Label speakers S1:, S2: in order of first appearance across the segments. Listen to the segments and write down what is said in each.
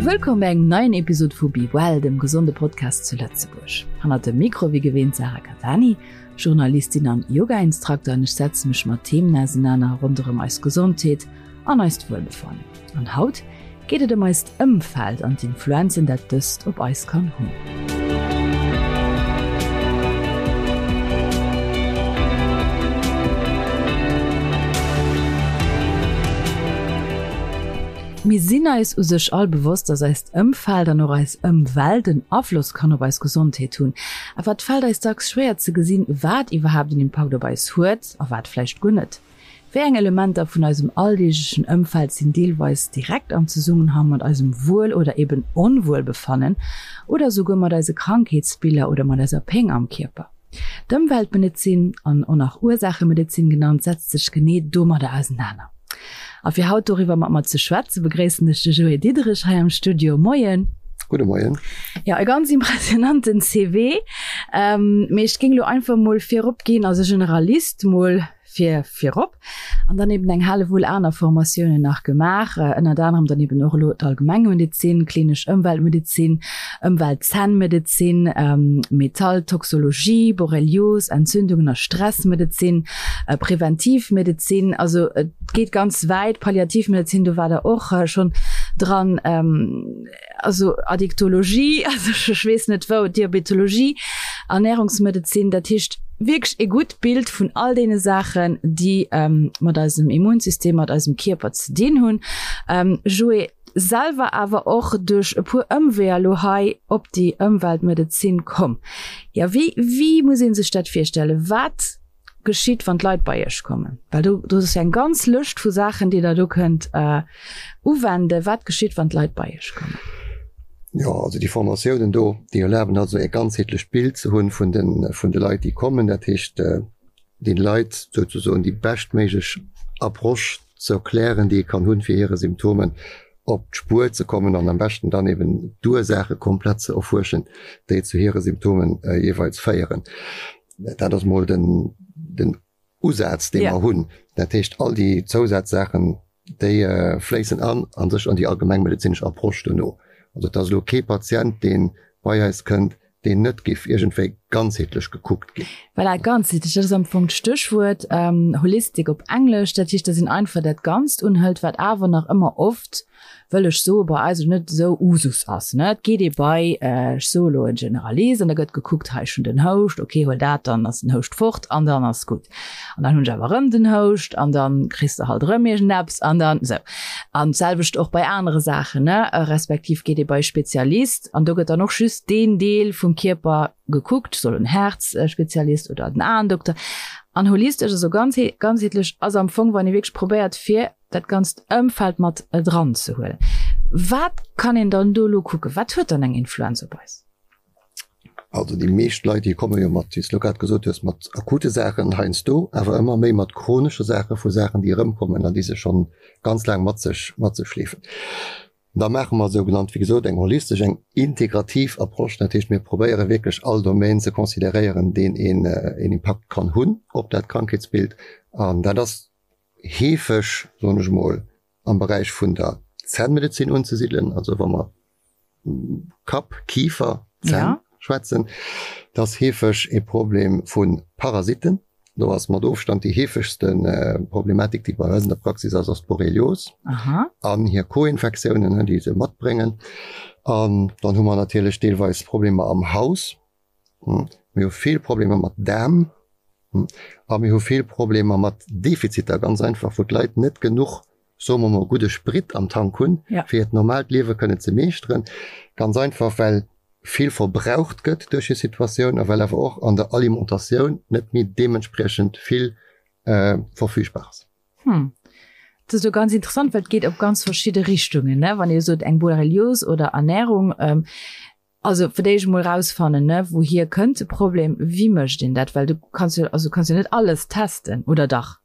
S1: Wëllkomm bei engem neien Episod vu Be Well, dem gesonde Podcast zu Lëtzebuerg. Hannert dem Mikro wéi gewinnt Sarah Catani, Journalistin an Yoga-Instrukter an ech setze mech mat Themen ausenaner ronderëm eis Gesondheet an eist Wuelbefannen. An haut geet et ëm eist Ëmfeld an d'Influenzen dat dëst op eis kann hunn. Mir sinn eis u sech all bewosst, dass eist Ëmfeld an och eis Ëmwelt en Afloss kann op eis Gesondheet hunn. Awer et fält eis dacks schwéier ze gesinn, wat iwwerhaapt en Impakt op eis huet a wat vläicht guer net. Wéi eng Elementer vun eisem alldeeglechen Ëmfeld sinn deelweis direkt am Zesummenhang mat eisem Wuel oder eben Onwuelbefannen oder esouguer mat eise Krankheetsbiller oder mat eiser Péng am Kierper? D'Ëmweltmedezin, an och nach Ursaachemedezin genannt, setzt sech genee domadder ausenaner. A fir haut doriwwer mat mer ze schwätzen, begréissen ech de Joé Diderich hei am Studio. Moien!
S2: Gudde Moien.
S1: Jo, e ganz impressionanten CV. Mee ech géing elo einfach mol virop ginn, als e Generalist mol fir virop an dann eben eng Hellewull aner Formatiounen nach gemaach, ënnert anerem dann eben och elo d'Allgemengmedezin, klinesch Ëmweltmedezin, Ëmweltzännmedezin, Metalltoxologie, Borrelios, Entzündungen a Stressmedezin, Präventivmedezin, also et geet ganz wäit, Palliativmedezin, do war Der och schonn dran. also Addiktologie, also ech weess net wou, Diabetologie, Ernährungsmedezin, dat heescht wierklech e gutt Bild vun all deene Saachen, déi mat eisem Immunsystem, mat eisem Kierper ze dinn hunn. Joé, selwer awer och duerch e puer Ëmweeër elo hei op déi Ëmweltmedezin komm. Jo, wéi, wéi muss ee sech dat virstellen? Wat geschitt, wann d'Leit bei Iech kommen? Well do, do ass jo eng ganz Lëscht vu Saachen, déi Der do kënnt uwenden. Wat geschitt, wann d'Leit bei Iech kommen?
S2: Jo, also déi Formatiounen do, déi erlaben also e ganzheetlecht Bild ze hunn vun de, vun de Leit, déi kommen. Dat heescht, den Leit souzesoen déi beschtméiglech Approche ze erklären, déi ee kann hunn, fir hire Symptomen op d'Spuer ze kommen an am beschten dann eben d'Ursaache komplett ze erfuerschen, déi zu hire Symptomen jeeweils féieren. Dat ass mol den, den Usaz, dee mer hunn. Dat heescht, all déi Zousazsaachen, déi fléissen an a sech an déi allgemengmedezinesch Approche dono. Also et ass elo kee Patient, dee bei eis kënnt, deen net géif iergendwéi ganzheetlech gekuckt ginn.
S1: Voilà, ganzheetlech, dat ass am Fong d'Stéchwuert, holistic op Englesch. Dat heescht, dass een einfach dat Ganzt unhëlt, wat awer nach ëmmer oft wëll ech soe bei eis net esou Usus ass, ne. Et geet ee bei, ech soe elo en Generalist an da gëtt gekuckt, hei ech hunn den Houscht, okay huel dat, dann ass den Houscht fort an dann ass gutt. An dann hunn ech awer erëm den Houscht an dann kriss de halt erëm iergendeppes an dann esou. An d'selwecht och bei anere Saachen, ne, respektiv geet ee bei e Spezialist an do gëtt dann och just deen Deel vum Kierper gekuckt, soll en Häerzspezialist oder den Aendokter. An holistesch, also ganzheetlech ass am Fong, wann ee wierklech probéiert fir dat ganzt Ëmfeld mat dran ze huelen. Wat kann een dann do elo kucken? Wat huet dann eng Influenz op eis?
S2: Also déi meescht Leit, déi komme jo mat, wéi s de elo grad gesot hues, mat akute Saachen heiansdo, awer ëmmer méi mat chronesche Saachen, vu Saachen, déi erëmkommen an déi se schonn ganz laang mat sech, mat sech schleefen. Da maache mer sougenannt, wéi gesot, eng holistesch, eng integrativ Approche. Dat heescht, mir probéiere wierklech all Domaine ze consideréieren, deen een een Impakt kann hunn op dat Krankheetsbild. An dat ass heefeg, soen ech emol, am Beräich vun der Zännmedezin unzesidelen, also wa mer Kapp, Kifer, Zänn schwätzen, dat ass heefeg e Problem vu Parasitten. Do ass mat Ofstand déi heefegste Problematik, déi bei eis an der Praxis ass, ass d'Borrelios an hir Co-Infektiounen, déi se matbréngen. An dann hu mer natierlech deelweis Problemer am Haus. Mir hu vill Problemer mat Daarm a mir hu vill Problemer mat Defiziter, ganz einfach, wou d'Leit net genuch, soe mer mol, gudde Sprit am Tank hunn, fir hiert normaalt Liewe kënnen ze meeschteren. Ganz einfach, well vill verbraucht gëtt duerch hir Situatioun a well awer och an der Alimentatioun net méi deementspriechend vill verfügbar ass.
S1: Hm. Dat ass jo ganz interessant, well et geet op ganz verschidde Richtungen, ne? Wann Dir sot eng Borrelios oder Ernährung. Also fir d'éischt emol rausfannen, ne, wouhier kënnt de Problem, wéi mécht een dat, well du kanns jo, also kanns jo net alles testen, oder dach?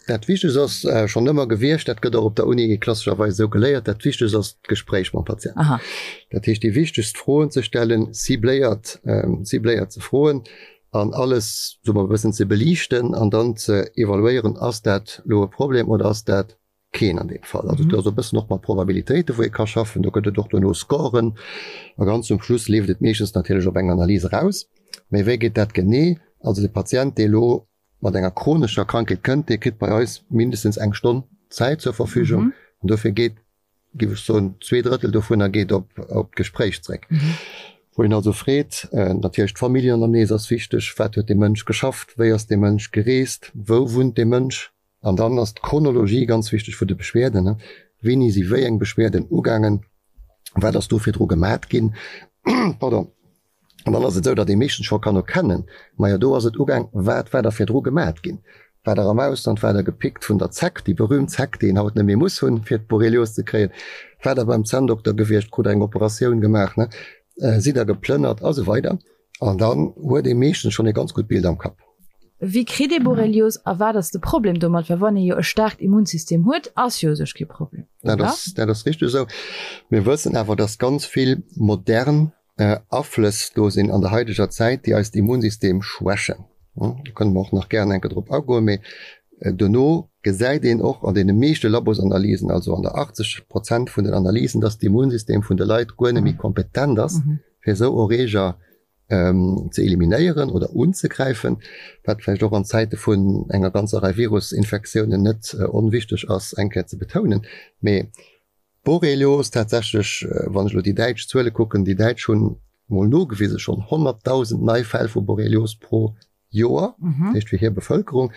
S2: Dat Wichtegst ass schonn ëmmer gewiescht, dat gëtt och op der Uni klassescherweis esou geléiert, dat Wichtegst ass d'Gespréich mam Patient.
S1: Aha.
S2: Dat heescht déi wichtegst Froen ze stellen, cibléiert, cibléiert ze froen an alles, soe mer, e bëssen ze beliichten an dann ze evaluéieren, ass dat elo e Problem oder ass dat. Keen an deem Fall. Also do ass e bëssen och mat Probabilitéite wou ee ka schaffen, do gëtt et och duerno Scoren a ganz zum Schluss leeft et meeschtens natierlech op eng Analys eraus. Mee wéi geet dat genee? Also de Patient dee elo mat enger chronescher Krankheet kënnt, dee kritt bei eis mindestens eng Stonn Zäit zur Verfügung an dofir geet, géif ech soen, 2/3 dovunner geet op op d'Gespréich zréck. Wou een also freet, natierlech d'Familljenanamnese ass wichteg, wat huet dee Mënsch geschafft, wéi ass dee Mënsch gereest, wou wunnt dee Mënsch? An dann ass d'Chronologie ganz wichteg vun de Beschwerden, Wéini si wéi eng Beschwerden ugaangen? Wat ass do virdru gemat ginn? Pardon. An dann ass et esou, datt ee meeschtens scho kann erkennen, majo do ass et ugaang, wat war da virdru gemat ginn? War der am Ausland? War der gepickt vun der Zeck, déi berühmt Zeck, déi een haut net méi muss hunn, fir d'Borrelios ze kréien? War der beim Zänndokter gewiescht? Krut der eng Operatioun gemaach? Sidd der geplënnert? A sou weider. An dann huet ee meeschtens schonn e ganz gutt Bild am Kapp.
S1: Wéi kritt ee Borrelios a wat ass de Problem domat? Well wann ee jo e staarkt Immunsystem huet, ass jo u sech kee Problem,
S2: oder? Dat ass, dat ass richteg esou. Mir wëssen awer, dass ganz vill modern Aflëss do sinn an der haideger Zäit, déi eist Immunsystem schwächen. Do kënne mer och nach gären eng Kéier drop agoen. Mee dono gesäit een och an deene meeschte Labosanalysen, also an der 80 Prozent vun den Analysen, dass d'Immunsystem vun de Leit guer net méi kompetent ass, fir esou Erreeger ze eliminéieren oder unzegräifen, wat vläicht och an Zäite vun enger ganzer Rei Virusinfektiounen net onwichteg ass, eng Kéier ze betounen. Mee Borrelios tatsächlech, wann ech elo déi däitsch Zuele kucken, déi Däitsch hunn mol nogewise schonn 100.000 nei Fäll vu Borrelios pro Joer, dat heescht fir hir Bevëlkerung.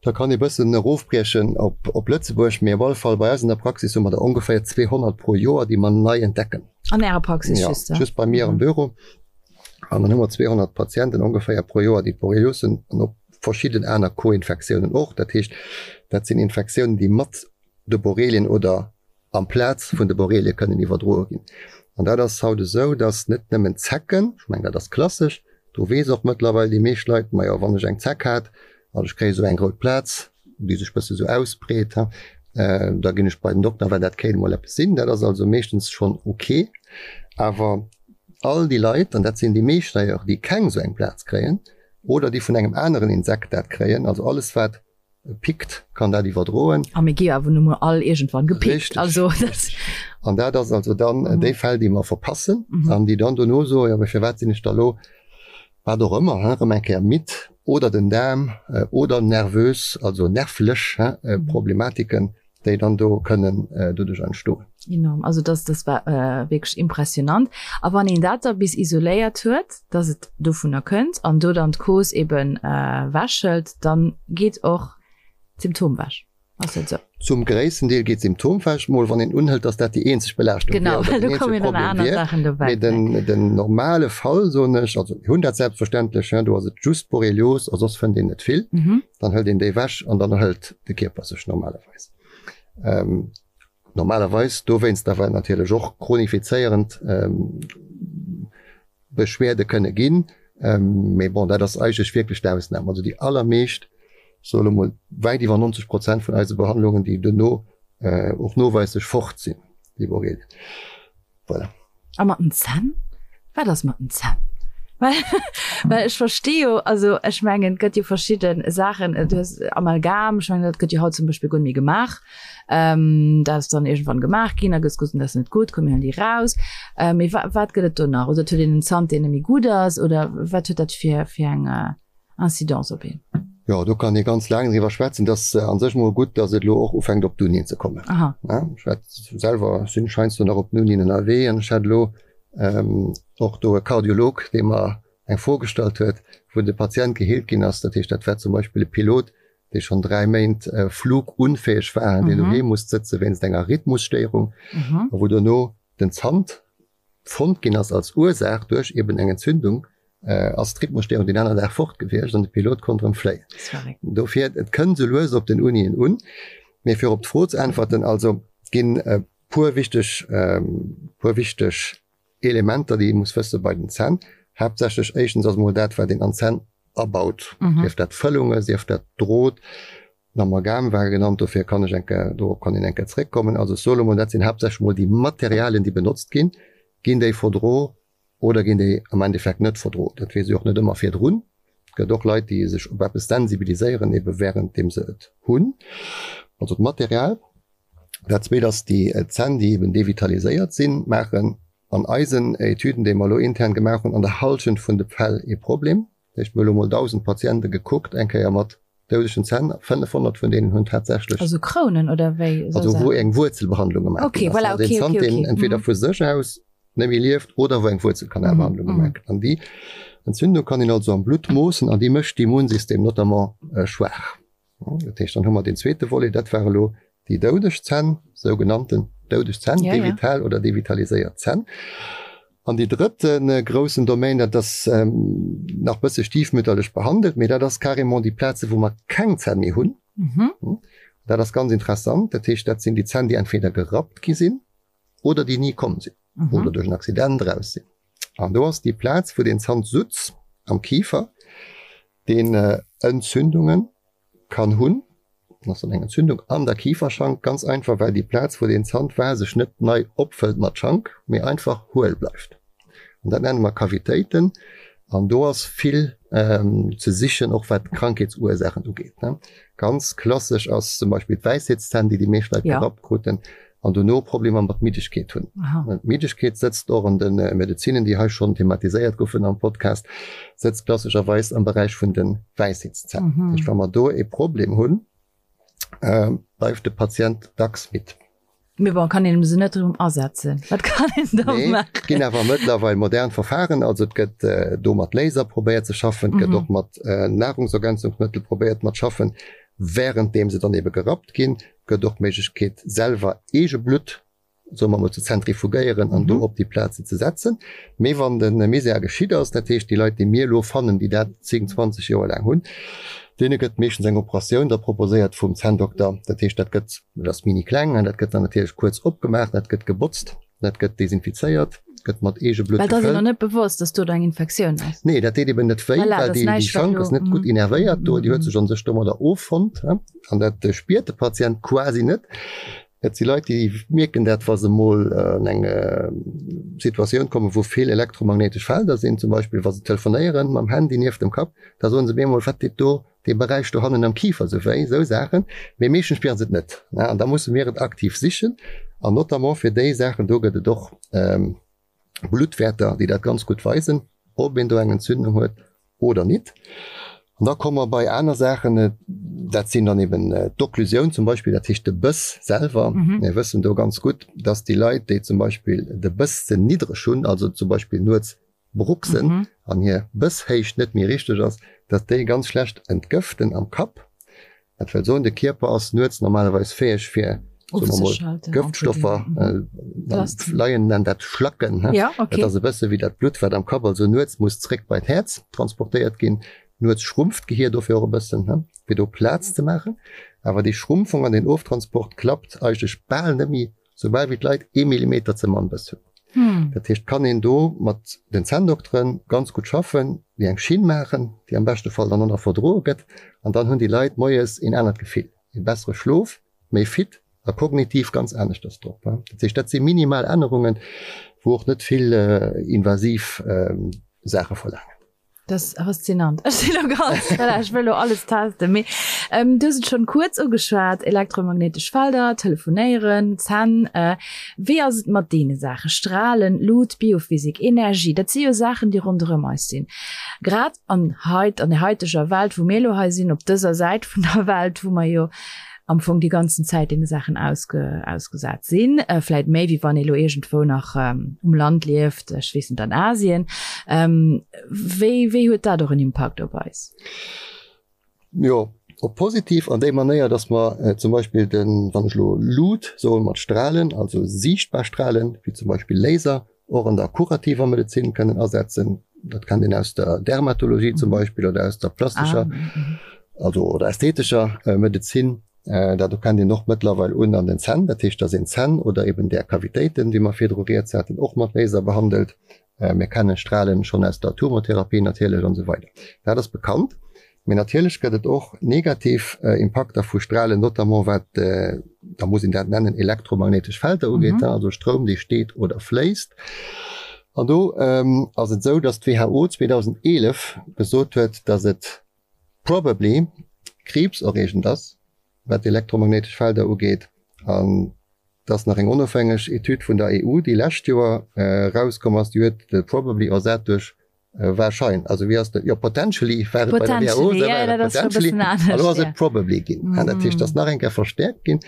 S2: Da kann ee bëssen erofbriechen op, op Lëtzebuerg, mee op alle Fall bei eis an der Praxis hu mer der ongeféier 200 pro Joer, déi mer nei entdecken.
S1: An Ärer Praxis
S2: ja, just? Just bei mir am Büro. An dann hu mer 200 Patienten ongeféier pro Joer, déi Borrelios hunn an op verschidden aner Co-Infektiounen och. Dat heescht, dat sinn Infektiounen, déi mat de Borrelien oder amplaz vun de Borrelie kënnen iwwerdroe ginn. An dat ass haut esou, dass net nëmmen Zecken, ech mengen dat ass klassesch, do weess och mëttlerweil déi meescht Leit, majo wann ech eng Zeck hat an ech kréie sou eng rout Plaz, déi sech bësse sou ausbreet, da ginn ech bei den Dokter, well dat kéint emol eppes sinn. Dat ass also meeschtens schonn ok. Awer all déi Leit, an dat sinn déi meescht d'ailleurs, déi keng sou eng Plaz kréien oder déi vun engem aneren Insekt dat kréien, also alles wat pickt, kann dat iwwerdroen.
S1: A mir gi awer nu mol all iergendwann gepickt.
S2: Richtig. Also, das An dat ass also dann mhm. déi Fäll, déi mer verpassen mhm. an déi dann dono soen, ja, firwat sinn ech da lo, wat och ëmmer, hein, erëm eng Kéier midd oder den Daarm äh, oder nervös, also nervlech hein, äh, mhm. Problematiken, déi dann do kënnen äh, doduerch entstoen.
S1: Enorm. Also das, das war äh, wierklech impressionant. A wann een dat da bis isoléiert huet, dass et dovunner kënnt an do dann d'Cause eben äh, wäschelt, dann geet och d'Symptom wech.
S2: Ass dat esou? Zum gréissten Deel geet d'Symptom wech, mol wann een unhëlt, dass dat déi eenzeg Belaaschtung
S1: wier oder den eenzege Problem
S2: wier. Mee den, den normale Fall, soen ech, also mir hunn dat selbstverständlech, hein, do ass et just Borrelios a soss fënnt een net vill, dann hëlt een déi wech an dann erhëlt de Kierper sech normalerweis. Ähm, normalerweis dowéinst awer natierlech och chronifizéierend ähm, Beschwerde kënne ginn. Ähm, mee bon, dat ass eigentlech wierklech d'Ausnam. Also déi allermeescht, soe lo mol wäit iwwer 90 Prozent vun eise Behandlungen, déi duerno äh, och noweislech fort sinn, déi Borrelien.
S1: Voilà. A mat den Zänn? Wat ass mat den Zänn? Well, well ech versti jo, also ech mengen, et gëtt jo verschidde Saachen, du hues Amalgam, ech mengen, dat gëtt jo haut zum Beispill guer net méi gemaach. Ähm, dat ass dann iergendwann gemaach ginn, da gëtt gesot, dat ass net gutt, komm mir huelen déi raus. Äh, mee wa wat gëtt et do nach? Oder et huet een en Zant, deen net méi gutt ass, oder wat huet dat fir, fir eng Incidence op een?
S2: Jo, do kann ee ganz laang driwwer schwätzen. Et ass a sech mol gutt, datt et elo och ufänkt op d'Unien ze kommen.
S1: Aha.
S2: Ech hat selwer, sinn ech heiansdo nach op den Unien ënnerwee an ech hat elo och do e Kardiolog, dee mer eng Fro gestallt huet, wou de Patient geheelt ginn ass. Dat heescht, dat war zum Beispill e Pilot, dee schonn 3 Méint flugunfäeg war, deen doheem musst sëtze wéinst enger Rhythmusstéierung a wou dono den Zant fonnt ginn ass als Ursaach duerch eben eng Entzündung, ass d'Rhythmusstéierung deen aner Dag fort gewiescht an de Pilot konnt erëm fléien. Dofir, et kënnt esou lues op den Unien un. Mee fir op d'Fro ze äntwerten, also et ginn e puer wichteg, puer wichteg Elementer, déi ee muss wësse bei den Zänn. Haaptsächlech éischtens ass emol dat, wat een an d'Zänn abaut, sief dat Fëllunge, sief dat Drot, Den Amalgam war genannt, dofir kann ech eng Kéier, dorop kann een eng Kéier zréckkommen. Also ech soe lo mol, dat sinn haaptsächlech mol déi Materialien, déi benotzt ginn. Ginn déi verdro oder ginn déi am Endeffekt net verdro? Dat weess ee och net ëmmer virdrun. Et gëtt och Leit, déi sech op eppes sensibiliséieren, ebe wärenddeem se et hunn. Also d'Material. Dat zweet ass déi Zänn, déi eben devitaliséiert sinn, maachen an eisen Etüden, déi mer elo intern gemaach hunn, an der Hallschent vun de Fäll ee Problem. Dat heescht, mir hu elo mol 1.000 Patiente gekuckt, eng Kéier mat doudegen Zänn, 500 vun deenen hunn tatsächlech.
S1: Also Krounen oder wéi?
S2: Also wou eng Wuerzelbehandlung gemaach ginn ass. Also een Zant, deen entweder vu sech aus net méi lieft oder wou eng Wuerzelkanalbehandlung gemaach gëtt. An déi Entzündung kann een also am Blutt moossen an déi mécht d'Immunsystem notamment schwaach. Dat heescht, dann hu mer deen zweete Volet, dat war elo déi doudeg Zänn, sougenannten doudeg Zänn, ja, devital ja. oder devitaliséiert Zänn. An déi drëtte äh, groussen Domain, dat ass ähm, nach bësse stiefmütterlech behandelt, mee dat ass carrément déi Plaze, wou mer keng Zänn méi hunn. Mhm. Hm? Dat ass ganz interessant. Dat heescht, dat sinn déi Zänn, déi entweder gerappt gi sinn oder déi ni komm sinn mhm. oder duerch en Accident raus sinn. An do ass déi Plaz, wou den Zant sutz am Kiefer, deen Entzündungen kann hunn, ass dann eng Entzündung an der Kiferschank, ganz einfach well déi Plaz wou deen Zant war sech net nei opfëllt mat Schank, mee einfach huel bleift. An dat nenne mer Kavitéiten an do ass vill ze sichen, och wat d'Krankheetsursaachen ugeet. Ganz klassesch ass zum Beispill d'Wäisheetszänn, déi déi meescht Leit gerappt kruten, an dono Problemer mat Middegkeet hunn. D'Middegkeet sëtzt och an de Medezinen, déi hei schonn thematiséiert goufen am Podcast, sëtzt klassescherweis am Beräich vun de Wäisheetszänn. Dat heescht, wa mer do e Problem hunn, bleift de Patient dacks midd.
S1: Mee bon, kann een se net erëm asetzen? Wat kann een da
S2: maachen? Nee, et ginn awer mëttlerweil modern Verfahren. Also et gëtt do mat Laser probéiert ze schaffen, et gëtt och mat Nahrungsergänzungsmëttel probéiert mat schaffen, wärenddeem se dann ebe gerappt ginn. Gëtt och d'Méiglechkeet selwer eege Blutt, soe mer mol, ze zentrifugéieren an do op déi Plazen ze setzen. Mee wann de Misär geschitt ass, dat heescht déi Leit déi mir elo fannen, déi dat 10, 20 Joer laang hunn, deene gëtt meeschtens eng Operatioun da proposéiert vum Zänndokter. Dat heescht dat gëtt, dat ass mini kleng, dat gëtt dann natierlech kuerz opgemaach, dat gëtt gebotzt. Dat gëtt desinfizéiert, gëtt mat Eegeblutt
S1: gefëllt. Well dat ass een och net bewosst, dass do eng Infektioun ass.
S2: Nee, dat deet eben net wéi, well déi Schank ass net gutt innervéiert do, déi huet sech an sech domadder offonnt an dat spiert de Patient quasi net. Et si Leit, déi mierken dat, wa se mol an eng Situatioun kommen, wou vill elektromagnéitesch Felder sinn, zum Beispill wa se telefonéieren mam Handy nieft dem Kapp, da soen se op eemol, wat deet do dee Beräich dohannen am Kifer sou wéi, esou Saachen, mee meeschtens spieren se et net, ne, an da musse mir et aktiv sichen an notamment fir déi Saachen do gëtt et och Bluttwäerter, déi dat ganz gutt weisen, ob een do eng Entzündung huet oder nit. An da komme mer bei aner Saachen, dat sinn dann eben d'Okklusioun zum Beispill, dat heescht de Bëss selwer. Mir wëssen do ganz gutt, dass déi Leit, déi zum Beispill de Bëss ze niddreg hunn, also zum Beispill nuets bruxen an hir Bësshéicht net méi richteg ass, datt déi ganz schlecht entgëften am Kapp. Dat wëll soen, de Kierper ass nuets normalerweis fäeg fir, soe mer mol, Gëftstoffer, Laien nennen dat Schlacken, dat ass e bësse wéi dat Blutt, wat am Kapp also nuets muss zréck bei d'Häerz transportéiert ginn. Nuets schrumpft d'Gehier dofir och e bëssen, fir do Plaz ze maachen. Awer déi Schrumpfung an den Oftransport klappt eigentlech bal net méi Soubal wéi d'Leit ee Millimeter ze mann Bëss hunn. Dat heescht, kann een do mat den Zänndoktere ganz gutt schaffen, déi eng Schinn maachen, déi am beschte Fall dann och nach verdroe gëtt. An dann hunn déi Leit moies een anert Gefill, ee bessere Schlof, méi fit a kognitiv ganz aneschters drop. Dat heescht, dat si minimal Ännerungen, wou och net vill invasiv Saache verlaangen.
S1: Dat ass faszinant. Ech sinn elo ganz, voilà, ech wëll elo alles testen. Mee ähm, du hues et schonn kuerz ugeschwat, elektromagnéitesch Felder, Telefonéieren, Zänn. Äh, wéi ass et mat deene Saachen? Strahlen, Lut, Biophysik, Energie, dat si jo Saachen, déi ronderëm eis sinn. Grad an heit, an der haiteger Welt, wou mir elo hei sinn, op dëser Säit vun der Welt, wou mer jo am Fong déi ganzen Zäit deene Saachen ausge, ausgesat sinn, äh, vläit méi wéi wann ee lo iergendwou nach ähm, um Land lieft, ech weess net, an Asien. Ähm, wéi, wéi huet dat och en Impakt op eis?
S2: Jo, op positiv an déi Manéier, dass mer äh, zum Beispill den, wann ech lo Lut soen, mat Strahlen, also siichtbar Strahlen, wéi zum Beispill Laser, och an der kurativer Medezin kënnen asetzen. Dat kennt een aus der Dermatologie zum Beispill oder aus der plastescher, also oder ästhetescher Medezin. Dat do kennt een och mëttlerweil un an den Zänn, dat heescht, dass een d'Zänn oder eben där Kavitéiten, déi mer virdru rieds haten, och mat Laser behandelt. Mir kennen Strahlen schonn aus der Tumortherapie natierlech an esou weider. Dat ass bekannt. Mee natierlech gëtt et och negativ Impakter vu Strahlen, notamment wat, da muss een dat nennen, elektromagnéitesch Felder ugeet, also Stroum, dee steet oder fléisst. An do ass et esou, datt d'WHO 2011 gesot huet, datt et probably kriibserreegend ass, wat elektromagnéitesch Felder ugeet. An. Et ass nach eng onofhängeg Etüd vun der EU, déi lescht Joer erauskomm ass, déi huet de probably ersat duerch warschein. Also wéi ass dat? Jo, potentially war et bei der WHO, da war et potentially, a lo ass et probably ginn. Dat heescht, et ass nach eng Kéier verstäerkt ginn.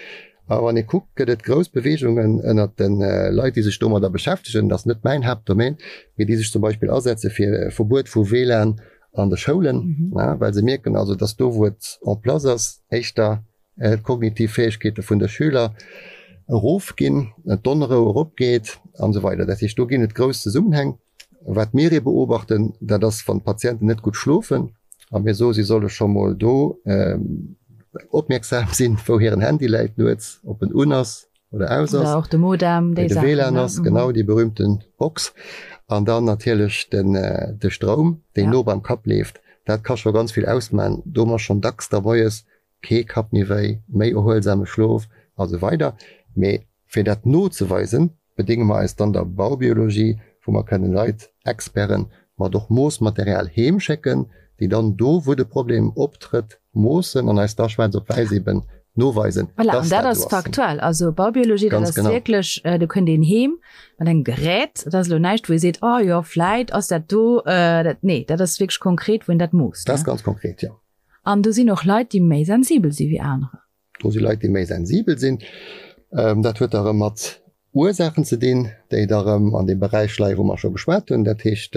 S2: A wann ee kuckt, gëtt et grouss Beweegungen ënnert de Leit, déi sech domadder beschäftegen, dat ass net mäin Haaptdomaine, mee déi sech zum Beispill asetze fir e Verbuet vu WLAN an de Schoulen, well se mierken also, dass do, wou et en place ass, éischter d'kognitiv Fäegkeete vun de Schüler erofginn, d'Onrou eropgeet an esou weider. Dat heescht, do ginn et grouss Zesummenhäng. Wat mir ee beobachten, dat ass, wann d'Patienten net gutt schlofen a mir soe si solle scho mol do opmierksam sinn, wou hiren Handy läit nuets, ob en un ass oder aus ass.
S1: Oder och de Modem,
S2: déi Saachen. De WLAN ass, genau, déi berühmten Box. An dann natierlech den, de Stroum, deen no beim Kapp leeft. Dat ka scho ganz vill ausman. Do hu mer schonn dacks da moies kee Kapp méi wéi, méi erhuelsame Schlof a sou weider. Mee fir dat nozeweisen, bedénge mer eis dann der Baubiologie, wou mer kënnen Leit, Experten, mat och Moossmaterial heem schécken, déi dann do, wou de Problem optrëtt, moossen an eis da schwaarz op wäiss eben noweisen,
S1: Voilà, an dass dat dat ass do ass. faktuell. Also Baubiologie, dat
S2: Ganz
S1: ass
S2: genau.
S1: wierklech, do kënnt een heem mat engem Gerät, dat ass elo näischt, wou ee seet, oh jo, vläit ass dat do, dat, nee, dat ass wierklech konkret, wou een dat moosst,
S2: Dat ass ne? ganz konkret, jo.
S1: An do sinn och Leit, déi méi sensibel si wéi anerer.
S2: Do si Leit, déi méi sensibel sinn. Dat huet da erëm mat Ursaachen ze dinn, déi da erëm an deem Beräich leien, wou mer scho geschwat hunn. Dat heescht,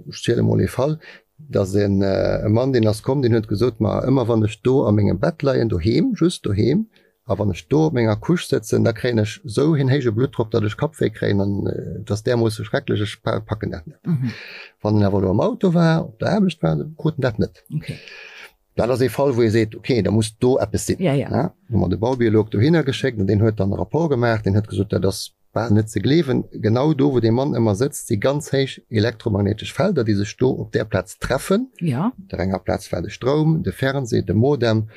S2: ech ziele mol ee Fall, dass e Mann, deen ass komm, deen huet gesot, Ma ëmmer wann ech do a mengem Bett leien, doheem, just doheem, A wann ech do op menger Couche sëtzen, da kréien ech sou een héije Bluttdrock, datt ech Kappwéi kréien an et ass därmoosse schrecklech, ech packen dat net. Wann en awer elo am Auto war, op der Aarbecht war, da krut en dat net. Dat ass ee Fall, wou ee seet, okay, da muss do eppes sinn. Hu mer de Baubiolog dohinner geschéckt an deen huet dann e Rapport gemaach, deen huet gesot, dat ass bal net ze gleewen, genau do wou dee Mann ëmmer sëtzt, si ganz héich elektromagnéitesch Felder, déi sech do op där Plaz treffen. Op der enger Plaz war de Stroum, de Fernseh, de Modem,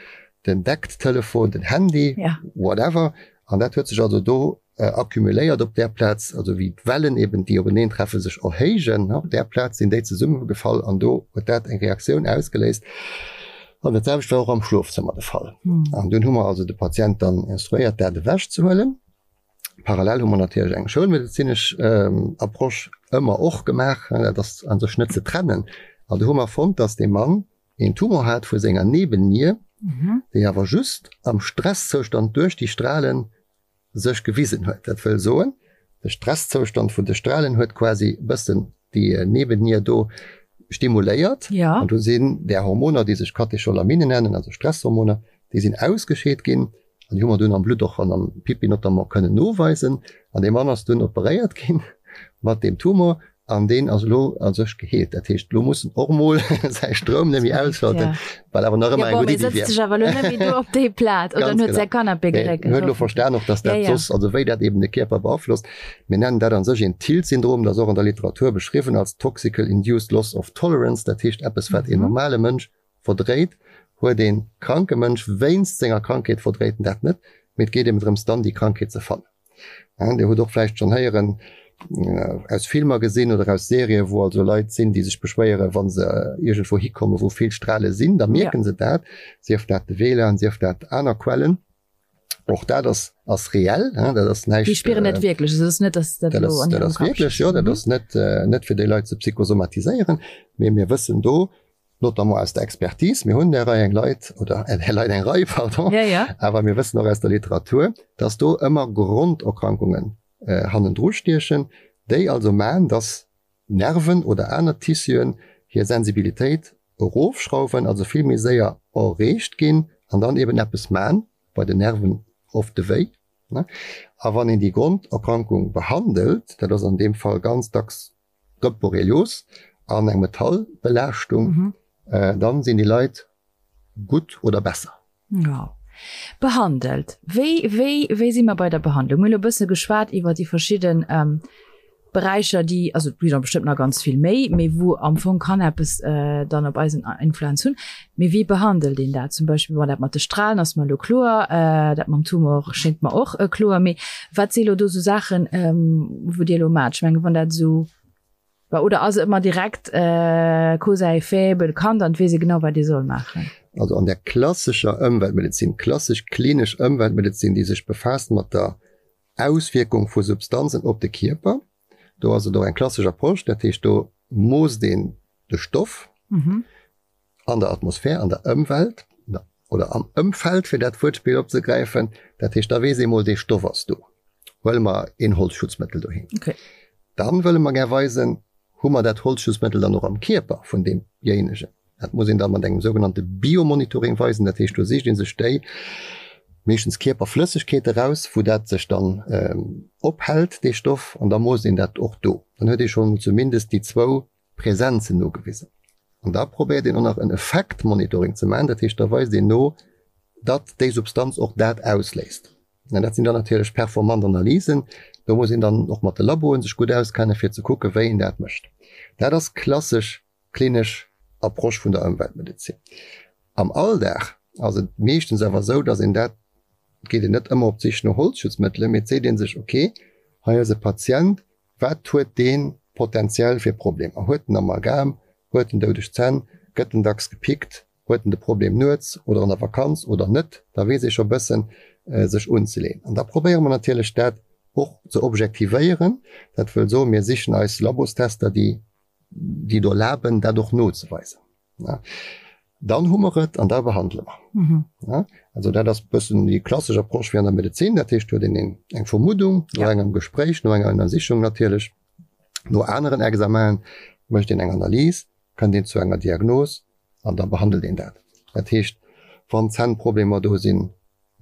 S2: den Deckttelefon, den Handy, whatever. An dat huet sech also do accumuléiert op där Plaz, also wéi d'Wellen eben, déi openeen treffen, sech erhéijen, op där Plaz sinn déi zesummegefall an do huet dat eng Reaktioun ausgeléist. An dat selwecht war och am Schlofzëmmer de Fall. An dunn hu mer also de Patient dann instruéiert, dat ewechzehuelen. Parallel hu mer natierlech eng schoulmedezinesch Approche ëmmer och gemaach, dat ass a sech net ze trennen. An do hu mer fonnt, dass dee Mann een Tumor hat vu senger Nebennier, déi awer just am Stresszoustand duerch déi Strahlen sech gewisen huet. Dat wëll soen, de Stresszoustand vun de Strahlen huet quasi e bëssen déi Nebennier do stimuléiert an do sinn där Hormoner, déi sech Katecholamine nennen, also Stresshormoner, déi sinn ausgescheet ginn an déi hu mer dunn am Blutt och an am Pipi notamment kënnen noweisen. An dee Mann ass dunn operéiert ginn mat deem Tumor an deen ass elo a sech geheelt. Dat heescht, elo muss en och emol säi Stroum net méi ausschalten, wat awer nach ëmmer eng gutt Iddi wier.
S1: Sëtzt sech awer elo net méi do op déi Plaz oder en huet säi Canapé geréckelt.
S2: En huet elo verstan och, dass dat soss, also wéi dat eben de Kierper beaflosst. Mir nennen dat a sech een TILT-Syndrom, dat ass och an der Literatur beschriwwen als Toxical Induced Loss of Tolerance, dat heescht eppes, wat een normale Mënsch verdréit, huet ee kranke Mënsch wéinst senger Krankheet verdréit en dat net, mee et geet eben drëms dann déi Krankheet ze fannen. Dir hutt och vläicht schonn héieren, aus Filmer gesinn oder aus Serien, wou also Leit sinn, déi sech beschwéieren, wa se iergendwou hikommen, wou vill Strale sinn, da mierke se dat, sief dat de WLAN, sief dat aner Quellen. Och dat ass, ass reell, dat ass näischt.
S1: Déi spieren dat wierklech, also et ass net, dass dat elo
S2: an hirem Kapp. Dat ass wierklech, jo, dat ass net, net fir déi Leit ze psychosomatiséieren, mee mir wëssen do, notamment aus der Expertise, mir hunn där Rei eng Leit, oder där Leit eng Rei, pardon,
S1: ja, ja.
S2: awer mir wëssen och aus der Literatur, dass do ëmmer Gronderkrankungen äh, hannendru stiechen, déi also man, dass Nerven oder aner Tissuen hir Sensibilitéit erofschrauwen, also vill méi séier erreegt ginn an dann eben eppes man, bei den Nerven oft de Wéi. Ne? A wann een déi Gronderkrankung behandelt, dat ass an deem Fall ganz dacks Gëtt Borrelios an eng Metallbelaaschtung, dann sinn déi Leit gutt oder besser.
S1: Jo. Behandelt. Wéi, wéi, wéi si mer bei der Behandlung? Mir hunn elo e bësse geschwat iwwer déi verschidden Beräicher, déi, also et gi der bestëmmt nach ganz vill méi, mee wou am Fong kann eppes dann op eis en Influenz hunn. Mee wéi behandelt een dat? Zum Beispill, bon, dat mat de Strahlen ass mer elo kloer, dat mam Tumor schéngt mer och kloer. Mee wat si elo do sou Saachen, wou Dir elo maacht? Ech mengen, wann dat esou. Oder ass et ëmmer direkt Cause à effet bekannt an et weess ee genau, wat ee soll maachen?
S2: Also an der klassescher Ëmweltmedezin, klassesch klinesch Ëmweltmedezin, déi sech befaasst mat der Auswierkung vu Substanzen op de Kierper, do ass et och eng klassesch Approche, dat heescht do moosst een de Stoff an der Atmosphär, an der Ëmwelt oder am Ëmfeld, fir dat Wuertspill opzegräifen. Dat heescht, da weess ee mol, dee Stoff ass do. Huele mer een Holzschutzmëttel doheem. Dann wëlle mer gär weisen, hu mer dat Holzschutzmëttel dann och am Kierper vun deemjéinegen. Dat muss een da mat engem sougenannte Biomonitoring weisen. Dat heescht, do sicht ee sech déi, meeschtens Kierperflëssegkeete raus, wou dat sech dann ophält, dee Stoff, an da moosst een dat och do. Dann huet ee schonn zumindest déi zwou Presenzen nogewisen. An da probéiert een och nach en Effektmonitoring ze maachen, dat heescht, da weist een no, datt déi Substanz och dat ausléist. An dat sinn dann natierlech performant Analysen. Do muss een dann och mat de Laboen sech gutt auskennen, fir ze kucken, wéi een dat mécht. Dat ass klassesch klinesch Approche vun der Ëmweltmedezin. Am Alldag ass et meeschtens awer esou, datt een dat, et geet een net ëmmer op d'Sich no Holzschutzmëttelen, mee et seet ee sech, okay, hei ass e Patient, Wat huet dee potentiell fir Problemer? Huet en Amalgam? Huet en doudeg Zänn? Gëtt en dacks gepickt? Huet en de Problem nuets oder an der Vakanz oder net? Da weess ee scho bëssen sech unzeleeën. An da probéiere mer natierlech dat och ze objektivéieren. Dat wëll soen, mir sichen eis Labostester, déi déi et erlaben, dat och nozeweisen. Dann hu mer et an da behandele mer. Mhm. Ja, also dat ass bëssen déi klassesch Approche wéi an der Medezin. Dat heescht, huet een eng Vermuddung no ja. engem Gespréich, no enger Ënnersichung natierlech, no aneren Examen, mécht een eng Analys, kënnt een zu enger Diagnos an da behandelt een dat. Dat heescht, wann Zännproblemer do sinn,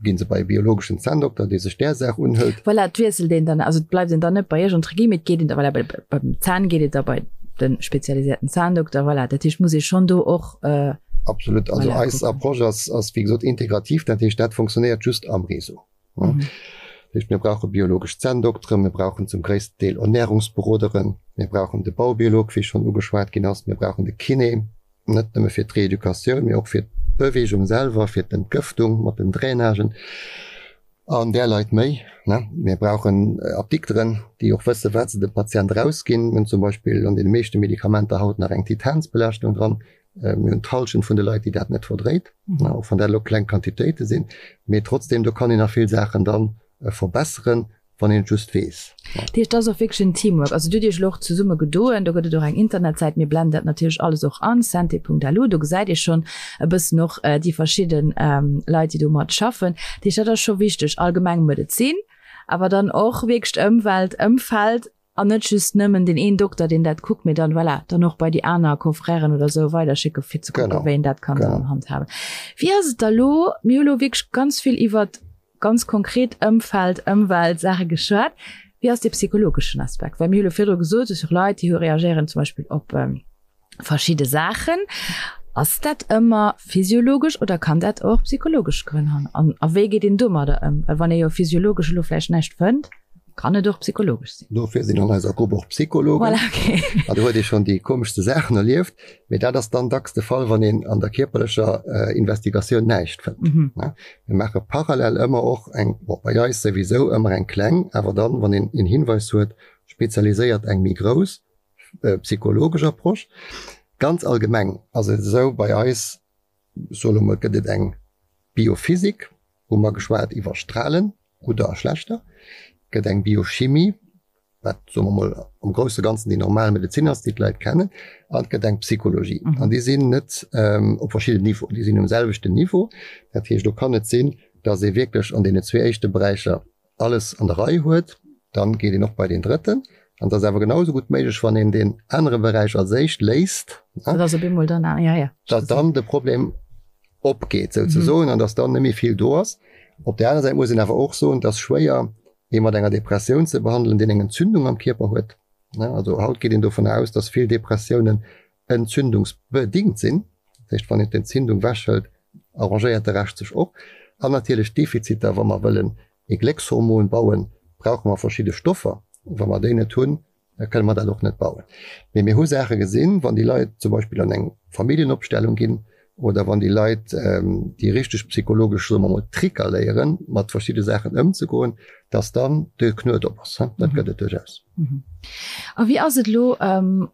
S2: Ginn se bei e biologeschen Zänndokter, dee sech där Saach unhëlt.
S1: Voilà, et wiesselt een dann, also et bleift een dann net bei Iech entre guillemets, et geet een da, voilà, bei, beim Zänn geet et da bei de spezialisierten Zahndokter, voilà. Dat heescht, muss ee schonn do och.
S2: Absolut, also voilà, eis Approche ass, ass wéi gesot integrativ, dat heescht, dat funktionéiert just am Réseau. Mhm. Dat heescht, mir brauche biologesch Zänndokteren, mir brauchen zum gréissten Deel Ernährungsberoderen, mir brauchen de Baubiolog, wéi schonn ugeschwat ginn ass, mir brauchen de Kiné, Net nëmme fir d'Reeducatioun, mee och fir d'Beweegung selwer, fir d'Entgëftung mat den Drainagen an där Leit méi. Mir brauchen Apdikteren, déi och wësse wat se dem Patient erausginn. Mir hunn zum Beispill an deene meeschte Medikamenter haut nach eng Titansbelaaschtung dran. Mir hunn d'Hallschent vun de Leit, déi dat net verdréit, och wann dat elo kleng Quantitéite sinn. Mee trotzdem, do kann een nach vill Saachen da verbesseren. wann een et just weess.
S1: Dat heescht, et ass och wierklech en Teamwork. Also dir hutt Iech elo och zesumme gedoen, do gëtt et och eng Internetsäit, mir blenden dat natierlech alles och an, santé.lu, do gesäit ee schonn e bëssen och déi verschidde Leit, déi do mat schaffen. Dat heescht, dat ass scho wichteg, allgemeng Medezin, awer dann och wierklech d'Ëmwelt, Ëmfeld an net just nëmmen deen een Dokter, deen dat kuckt, mee dann, voilà, dann och bei déi aner Confrèren oder esou weiderschécken, fir ze kucken, wéi een dat kann dann handhaben. Wéi ass et da elo? Mir hu elo wierklech ganz vill iwwert ganz konkret Ëmfeld, Ëmwelt, Saache geschwat. Wéi ass dee psychologeschen Aspekt? Well mir hu lo virdru gesot, et si och Leit, déi hu reagéieren zum Beispill op verschidde Saachen. Ass dat ëmmer physiologesch oder kann dat och psychologesch Grënn hunn? An a wéi geet een domadder ëm? Well wann ee jo physiologesch elo vläicht näischt fënnt, kann et och psychologesch sinn.
S2: Dofir sinn an eiser Grupp och Psychologen.
S1: Voilà, okay.
S2: An do huet ee schonn déi komeschste Saachen erlieft. Mee dat ass dann dacks de Fall, wann een an der kierperlecher Investigatioun näischt fënnt. Mir maache parallel ëmmer och eng, bon, bei eis souwisou ëmmer eng kleng, awer dann, wann een een Hinweis huet, spezialiséiert eng méi grouss psychologesch Approche. Ganz allgemeng ass et esou bei eis, ech soe lo mol, gëtt et eng Biophysik, hu mer geschwat iwwer Strahlen, gudder a schlechter, gëtt eng Biochimie, wat, soe mer mol, am grousse Ganzen déi normal Medezin ass, déi d'Leit kennen, an et gëtt eng Psychologie. An déi sinn net op verschidden Niveauen, déi sinn um selwechten Niveau. Dat heescht, do kann et sinn, datt ee wierklech an deenen zwee éischte Beräicher alles an der Rei huet, dann geet een och bei deen drëtten. An et ass awer genau esou gutt méiglech, wann een deen anere Beräich als éischt léist, datt dann de Problem opgeet souzesoen an datt dann net méi vill do ass. Op där aner Säit muss een awer och soen, et ass schwéier, ee mat enger Depressioun ze behandelen, deen eng Entzündung am Kierper huet. Also haut geet een dovun aus, datt vill Depressiounen entzündungsbedingt sinn. Dat heescht, wann een d'Entzündung wechhëlt, arrangéiert de Rescht sech och. An natierlech d'Defiziter, wa mer wëllen ee Gléckshormon bauen, brauche mer verschidde Stoffer. Wa mer déi net hunn, da kënne mer dat och net bauen. Mee mir hu Saache gesinn, wann déi Leit zum Beispill an eng Familljenopstellung ginn. oder wann déi Leit déi richteg psychologesch, soe mer mol, Tricker léieren, mat verschidde Saachen ëmzegoen, dass dann de Knuet op ass. Dat gëtt et duerchaus.
S1: A wéi ass et elo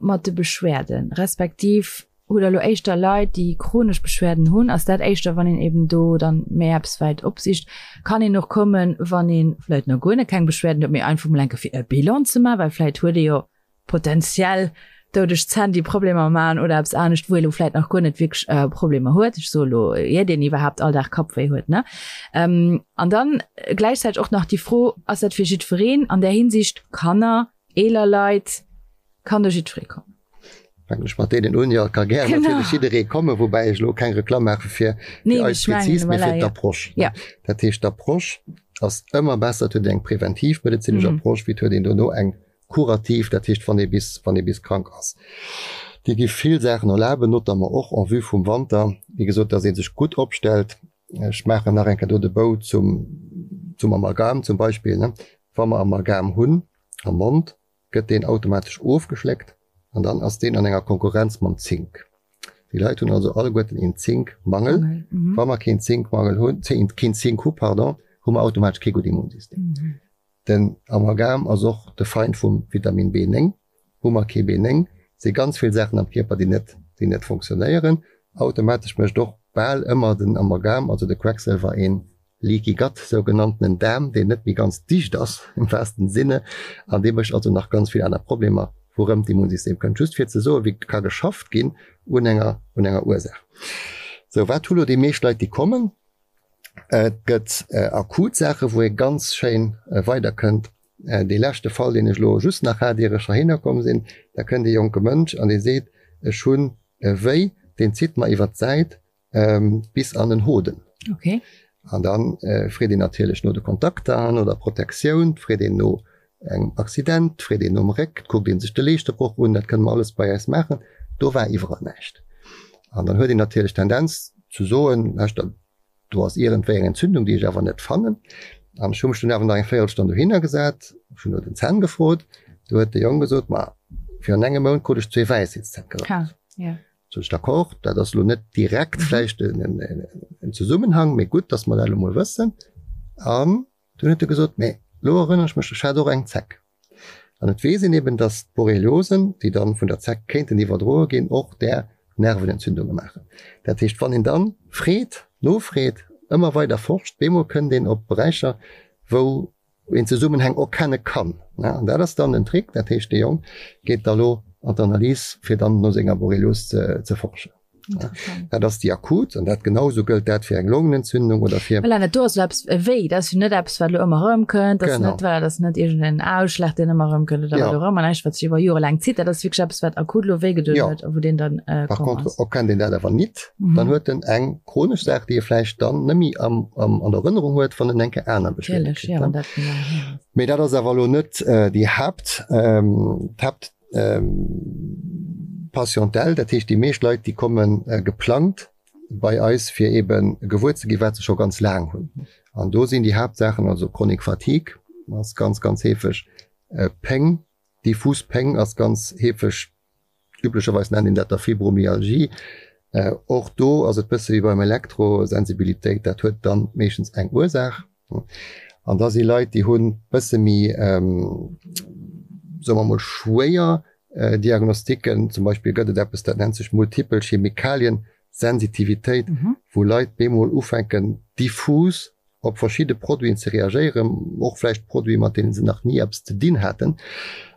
S1: mat de Beschwerden, respektiv hutt Der elo éischter Leit, déi chronesch Beschwerden hunn? Ass dat éischter, wann een eben do dann méi eppes wäit opsicht? Kann een och kommen, wann ee vläicht nach guer net keng Beschwerden huet, mee einfach mol eng Kéier fir e Bilan ze maachen, well vläicht huet ee jo potenziell doudeg Zänn, déi Problemer maachen oder eppes anescht, wou ee lo vläit nach guer net wierklech Problemer huet. Ech soe lo, ier deen iwwerhaapt all Dag Kappwéi huet, ne? An dann gläichzäiteg och nach déi Fro, Ass dat fir jiddwereen an där Hinsicht, Kanner, eeler Leit, kann do jiddweree kommen?
S2: Fänken ech mat deenen un. Jo, et ka gär natierlech jidderee kommen, woubäi ech elo keng Reklamm maache fir eis prezis, mee fir d'Approche. Dat heescht, d'Approche ass ëmmer besser, et huet een eng preventivmedezinesch Approche, wéi et huet een dono eng Kurativ, dat heescht wann ee bis, wann ee bis krank ass. Dir gi vill Saachen erlaben, notamment och en vue vum Wanter, wéi gesot, dass ee sech gutt opstellt. Ech maachen nach eng Kéier do de Bou zum, zum Amalgam zum Beispill, ne. Wa mer Amalgam hunn am Mond, gëtt deen automatesch ofgeschléckt an dann ass deen an enger Konkurrenz mam Zink. Déi Leit hunn also alleguerten een Zinkmangel. Wa mer keen Zinkmangel hunn, keen Zink hu, pardon, hu mer automatesch kee gutt Immunsystem. Den Amalgam ass och de Feind vum Vitamin B9. Hu mer kee B9, si ganz vill Saachen am Kierper, déi net, déi net funktionéieren. Automatesch mécht och bal ëmmer den Amalgam, also de Quecksilwer, een Leaky Gut, sougenanntenen Daarm, deen net méi ganz dicht ass, im wahrsten Sinne, an dee mécht also nach ganz vill aner Problemer, wourëm d'Immunsystem kënnt. Just fir ze soen, wéi ka geschafft ginn un enger, un enger Ursaach. Sou, wat hu lo déi meescht Leit, déi kommen? Et gëtt akut Saachen, wou ee ganz schéin weiderkënnt. Dee leschte Fall, deen ech elo just nach hat, ier ech heihinner komm sinn, da kënnt ee jonke Mënsch an dee seet, Ech hunn e Wéi, deen zitt mer iwwer d'Säit bis an den Hoden. An da freet een natierlech no de Kontakter, no der Protektioun, freet een no engem Accident, freet een nom Réck, kuckt ee sech de Leeschtebroch un, dat kënne mer alles bei eis maachen. Do war iwwerall näischt. An dann huet een natierlech d'Tendenz zu soen, Lauschtert, do ass iergendwéi eng Entzündung, déi ech awer net fannen. An ech hu mech dunn awer nach eng Véierelstonn dohinner gesat, ech hunn no den Zänn gefrot. Du huet de Jong gesot, Ma virun engem Mount krut ech zwee Wäisheetszänn gerappt. Sot ech, D'accord, dat ass elo net direkt vläicht en Zesummenhang, mee gutt, datt mer dat elo mol wëssen. An Dunn huet e gesot, Mee elo erënnere ech mech, ech hat och eng Zeck. An et weess een eben, datt d'Borreliosen, déi dann vun der Zeck kéinten iwwerdroe ginn, och där Nervenentzündunge maachen. Dat heescht, wann een dann freet, nofreet, ëmmer weider forscht, bemol kënnt een op Beräicher, wou een Zesummenhäng erkenne kann. An dat ass dann den Trick. Dat heescht, dee Jong geet da lo an d'Analys, fir dann no senger Borrelios ze forschen. Dat ass déi akut an dat genau sou gëllt dat fir eng Longenentzündung oder fir.
S1: Voilà, dat do ass elo eppes wéi, dat ass jo net eppes wat elo ëmmer erëmkënnt, dat ass net, voilà, dat ass net iergendeen Ausschlag deen ëmmer erëmkënnt oder wat och ëmmer, näischt wat sech iwwer Jore laang zitt, dat ass wierklech eppes wat akut elo wéi gedoen huet a wou deen dann
S2: Par komm contre ass. erkennt een dat awer nit, dann huet en eng chronesch Saach déi e vläicht dann net méi am am an der Erënnerung huet, wann en eng Kéier aner Beschwerde
S1: Natierlech,
S2: kritt,
S1: jo,
S2: ne.
S1: wann dat méi laang hier ass.
S2: Mee dat ass awer elo net déi Haapt, d'Haapt. Patientèle, dat heescht déi meescht Leit déi komme geplangt bei eis fir ebe gewuer ze ginn, wat se scho ganz laang hunn. An do sinn déi Haaptsaachen also Chronique fatigue ass ganz ganz heefeg, Péng, diffus Péng ass ganz heefeg, üblecherweis nennt een dat da Fibromyalgie. Och do ass et bësse wéi beim Elektrosensibilitéit, dat huet dann meeschtens eng Ursaach. An da si Leit, déi hunn bësse méi, soe mer mol, schwéier Diagnostiken. Zum Beispill gëtt et eppes, dat nennt sech multipel Chemikaliensensitivitéit, wou Leit bemol ufänken diffus op verschidde Produiten ze reagéieren, och vläicht Produite mat deene se nach ni eppes ze dinn haten,